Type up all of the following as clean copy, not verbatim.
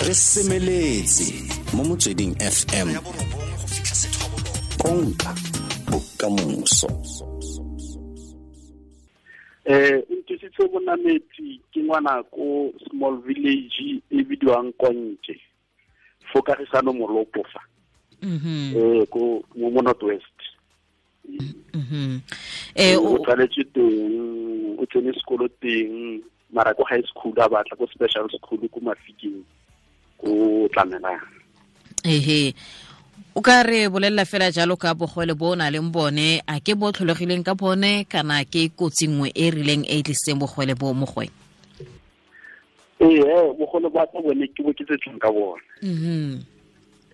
Re semeletse mo Motsweding FM, konka bokamoso. Nthusitse Bonametsi ke ngwana ko small village e bidiwang Konke, fo Kagisano Molopo fa. Ko mo North West. O tsaletswe teng, o tsene sekolo teng, mara ko high school a batla ko special school ko Mafikeng, ko Tlamelang. Ehe. O ka re bolelela fela jalo ka bogole bo o na leng bone, a ke bo tlholegileng ka bone kana ke kotsi nngwe e rileng e e tlisitseng bogole bo mo go wena? Ee, bogole ba ka bone ke bo ke tsetsweng ka bone.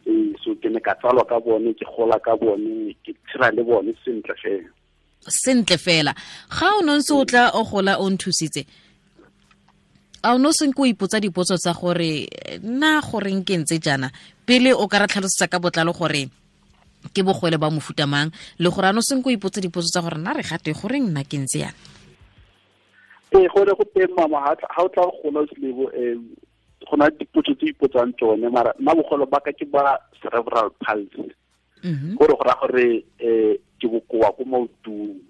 Ee, so ke ne ka tsalwa ka bone, ke gola ka bone, ke tshela le bone sentle fela. Sentle fela. Ga o ne ntse o tla o gola o nthusitse, a o ne o senke o ipotsa dipotso tsa gore nna goreng ke ntse jaana? Pele o ka re tlhalosetsa ka botlalo gore ke bogole ba mofuta mang, le gore a ne o senke o ipotsa dipotso tsa gore nna re gate goreng nna ke ntse jaana? Ee, gore go teng mama, ha o tla go gola o selebo, go na le dipotso tse ipotsang tsone, mara nna bogolo ba ka ke ba cerebral palsy. Gore go raya gore ke bokoa ko maotong.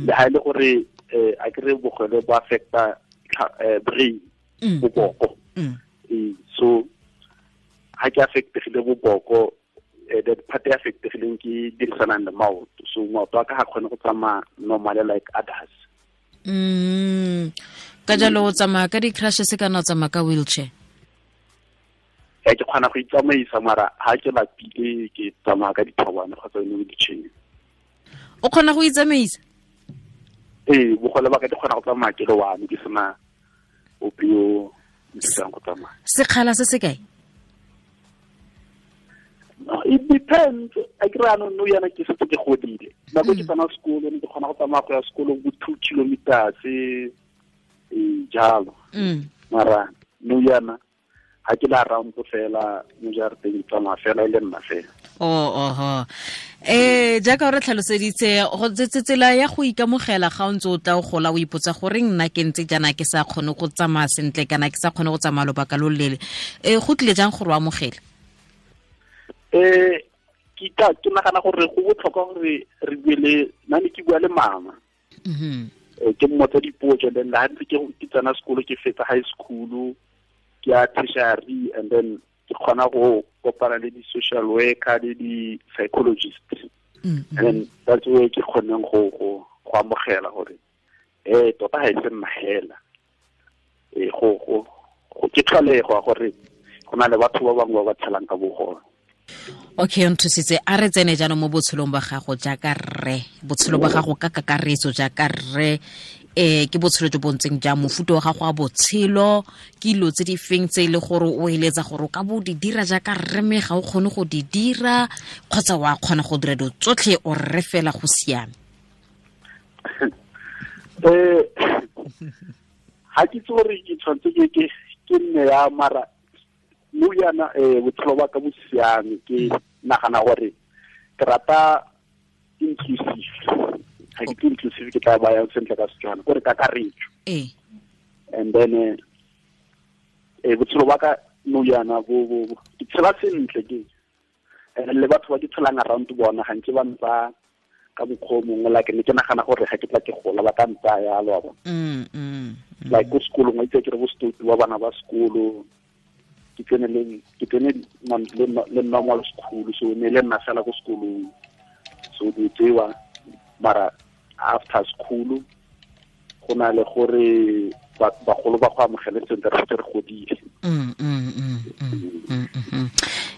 Le ha e le gore a ke re bogole bo affecta brain, boboko. So ha ke affectegile boboko, the part e affectegileng ke dirisanang le maoto. So maoto a ka ga kgone go tsamaya normally like others. Ka jalo o tsamaya ka di-crutches kana o tsamaya ka wheelchair? Ke kgona go itsamaisa, mara ha ke lapile ke tsamaya ka dithobane kgotsa yone wheelchair. O kgona go itsamaisa? Ee, bogole ba ka ke kgona go tsamaya ke le one, ke sena ope yo nthusang go tsamaya. Sekgala se se kae? No, it depends. A ke re anong nou yana ke setse ke godile. Nako ke tsena sekolo, ne ke kgona go tsamaya go ya sekolong bo 2 kilometers, jalo. Mara nou yana ha ke la round fela mo jarateng, ke tsamaya fela e le nna fela. Oh, oho. Jaaka o re tlhaloseditse, go tsela ya go ikamogela ga o ntse o tla o gola o ipotsa gore nna ke ntse jaana ke sa kgone go tsamaya sentle kana ke sa kgone go tsamaya lobaka lo loleele. Go tlile jang gore o amogele? Ke nagana gore go botlhokwa gore re bue le, nna ne ke bua le mama. Ke mmotsa dipotso, then ha ntse ke tsena sekolo, ke fetsa high school, ke ya tertiary, and then ke kgona go kopana le di-social worker le di-psychologist. And then that's where ke kgoneng go amogela gore, tota ha e se nna hela. Go ke tlholego gore go na le batho ba bangwe ba ba tshelang ka bogole. Okay, nthusitse, a re tsene jaanong mo botshelong ba gago jaaka rre, botshelo ba gago ka kakaretso jaaka rre, ke botshelo jo bo ntseng jang, mofuta wa gago wa botshelo, ke dilo tse di feng tse e le gore o eletsa gore o ka bo di dira jaaka rre mme ga o kgone go di dira, kgotsa wa kgona go dira dilo tsotlhe o rre fela go siame? Ha ke itse gore ke tshwanetse ke nne ya mara nou yana, botshelo ba ka bo siame, ke nagana gore ke rata inclusive. Ha ke itse inclusive ke tla bayang sentle ka Setswana, kore kakaretso. And then botshelo ba ka nou yana bo ke tshela sentle ke. And le batho ba ke tshelang around bona ga nke ba ntsa ka mokgwa o mongwe, like ne ke nagana gore ga ke tla ke gola ba ka ntsaya yalo, wa bona. Like ko sekolong, wa itse ke re bo stoutu ba bana ba sekolo, ke tsene le, ke tsene le, le normal school, so ne le nna fela ko sekolong. So di tsewa, mara after school go na le gore bagolo ba go amogele sentle, re setse re godile.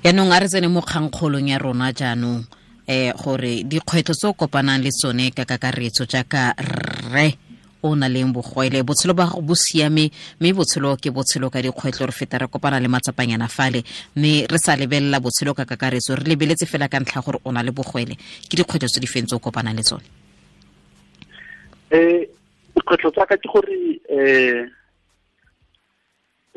Yaanong a re tsene mo kgangkgolong ya rona jaanong, gore dikgwetlho tse o kopanang le tsone ka kakaretso jaaka rre o na leng bogwele, botshelo ba gago bo siame, mme botshelo ke botshelo ka dikgwetlho, re feta re kopana le matsapanyana fale, mme re sa lebelela botshelo ka kakaretso, re lebeletse fela ka ntlha gore o na le bogwele. Ke dikgwetlho tse di feng tse o kopanang le tsone? Dikgwetlho tsa ka ke gore,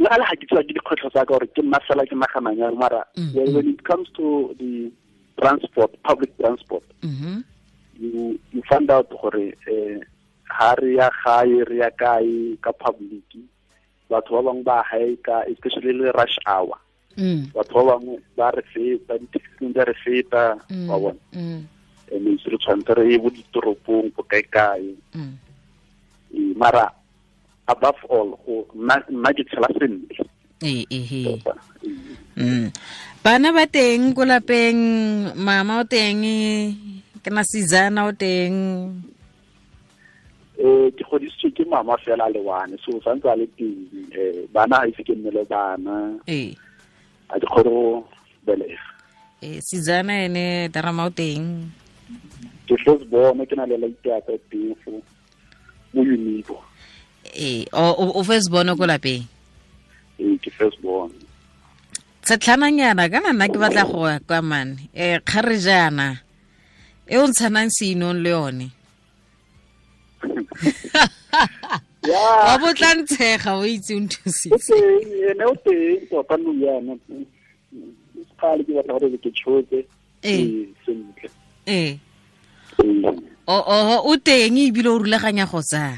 le ga le ga ke tswa ke dikgwetlho tsa ka gore ke nna fela ke naganang jalo, mara when it comes to the transport, public transport, you find out gore, ha re ya gae, re ya kae ka public, Batho ba bangwe ba haeka, especially le rush hour. Batho ba bangwe ba re feta, di-taxi di re feta, wa bona. And re tshwanetse re ye bo ditoropong bo kae-kae. Mara above all, go nna ke tshela sentle. Ee. Bana ba teng ko lapeng, mama o teng, ke na sizana o teng. Ke godisitswe ke mama fela le one, so santse a le teng. Bana ha ise ke nne le bana. A di kgone go belega. Sizana ene darama o teng. Ke first born, ke na le laite teng fo mo Unibo. O first born ko lapeng? Ke first born. Tshetlhananyana kana nna ke batla go ya kwa mane. Kgarejana e o ntshanang seinong le yone. Wa botla ntshega o itse o nthusitse. Ene o teng tota nou yana. Kgale ke batla gore ke tshotse. Sentle. O teng ebile o rulaganya go tsaya.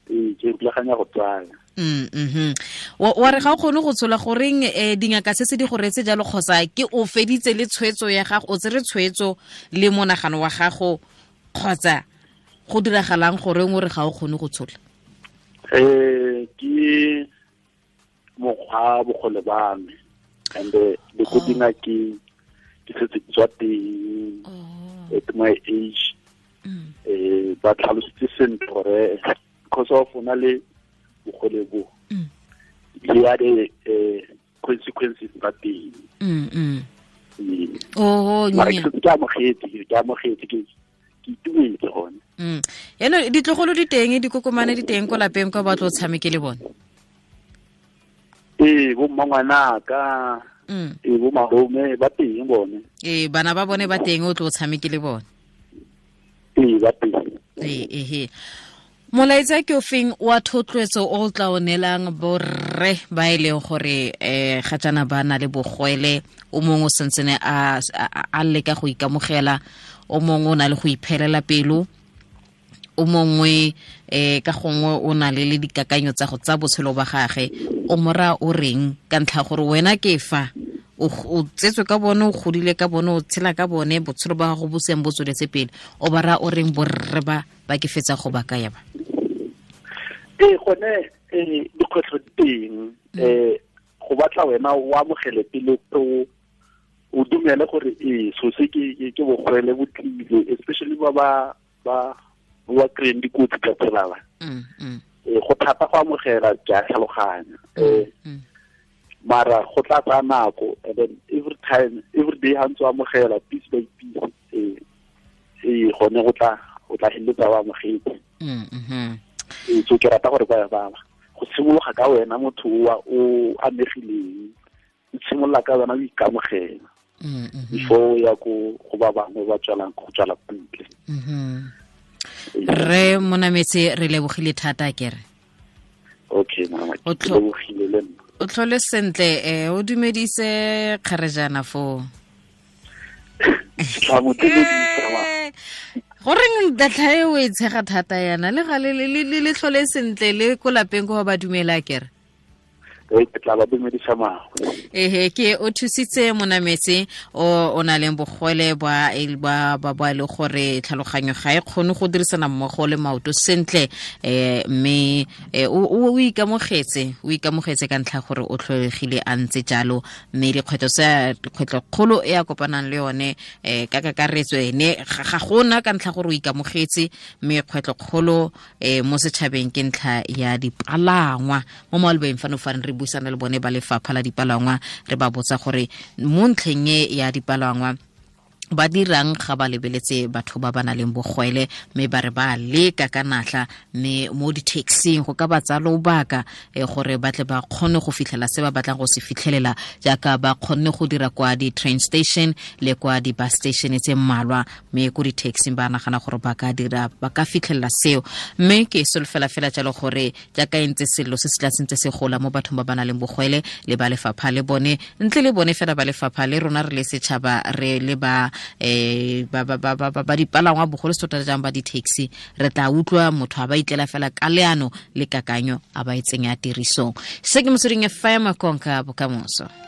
Ke rulaganya go tsaya. Wa re ga o kgone go tshola goreng dingaka se se di go reetse jalo, kgotsa ke o feditse le tshwetso ya gago, o tsere tshwetso le monagano wa gago, kgotsa go diragalang goreng o re ga o kgone go tshola? Ke mokgwa bogole ba me, and le ko dingakeng ke setse ke tswa teng at my age. Ba tlhalositse sentle gore because of o na le bogole bo, le ya di consequences tsa teng. Ke amogetse, ke itumetse gone. Yaanong ditlogolo di teng, dikokomane di teng ko lapeng kwa ba tlo tshameke le bone? Bo mmangwanaka, bo malome ba teng bone. Bana ba bone ba teng, o tlo tshameke le bone? Ba teng. Molaetsa ke o feng wa thotloetso o tla o neelang borre ba e leng gore ga jaana ba na le bogwele, o mongwe o santsene a leka go ikamogela, o mongwe o na le go iphelela pelo, o mongwe ka gongwe o na le dikakanyo tsa go tsa botshelo ba gagwe, o mora o reng ka ntlha gore wena ke fa o tsetswe ka bone, o godile ka bone, o tshela ka bone, botshelo ba gago bo seng bo tsweletse pele, o ba raya o reng borre ba ba ke fetsa go ba kaya ba? Gone dikgwetlho di teng. Go batla wena o amogele pele, o dumele gore so se ke bogwele bo tlile, especially ba ba kry-eng dikotsi ka tsela ba. Go thata go amogela, ke a tlhaloganya. Mara go tla tsaya nako, and then every time, every day ha ntse o amogela piece by piece, gone go tla o tla feleletsa o amogetse. So ke rata gore ba go simologa ka wena motho o amegileng, o simolola ka wena o ikamogela before o ya ko go ba bangwe ba tswalang go tswala kwa ntle. Re Monametse, re lebogile thata kere. Okay, mama, ke lebogile le nna. O tlhole sentle, o dumedise kgarejana foo. Goreng data e o e tshega thata yana le ga le tlhole sentle le ko lapeng ko ba dumela kere? Ke tla ba dumedisa mama. Ke o thusitse Monametse o na leng bogwele ba ba le gore tlhaloganyo ga e kgone go dirisana mmogo le maoto sentle, mme o ikamogetse ka ntlha gore o tlholegile a ntse jalo, mme dikgwetlho tsa dikgwetlho kgolo e a kopanang le yone ka kakaretso ene ga gona ka ntlha gore o ikamogetse, mme kgwetlho kgolo mo setšhabeng ke ntlha ya dipalangwa. Mo malobeng fano fa re buisana le bone ba lefapha la dipalangwa, re ba botsa gore mo ntlheng e ya dipalangwa ba dirang ga ba lebeletse batho ba ba nang le bogwele, mme ba re ba leka ka natla, mme mo di-taxing go ka ba tsaya lobaka gore ba tle ba kgone go fitlhela se ba batlang go se fitlhelela, jaaka ba kgonne go dira kwa di-train station le kwa di-bus station tse mmalwa, mme ko di-taxing ba nagana gore ba ka dira, ba ka fitlhelela seo. Mme ke solofela fela jalo gore jaaka e ntse sello se se tla sentse se gola mo bathong ba ba nang le bogwele le ba lefapha le bone, ntle le bone fela ba lefapha le rona re le setšhaba re le ba Ba dipalangwa bogolo se tota jang ba di-taxi, re tla utlwa motho a ba itlela fela ka leano le kakanyo a ba e tsenya tirisong. Se ke Motsweding FM, konka bokamoso.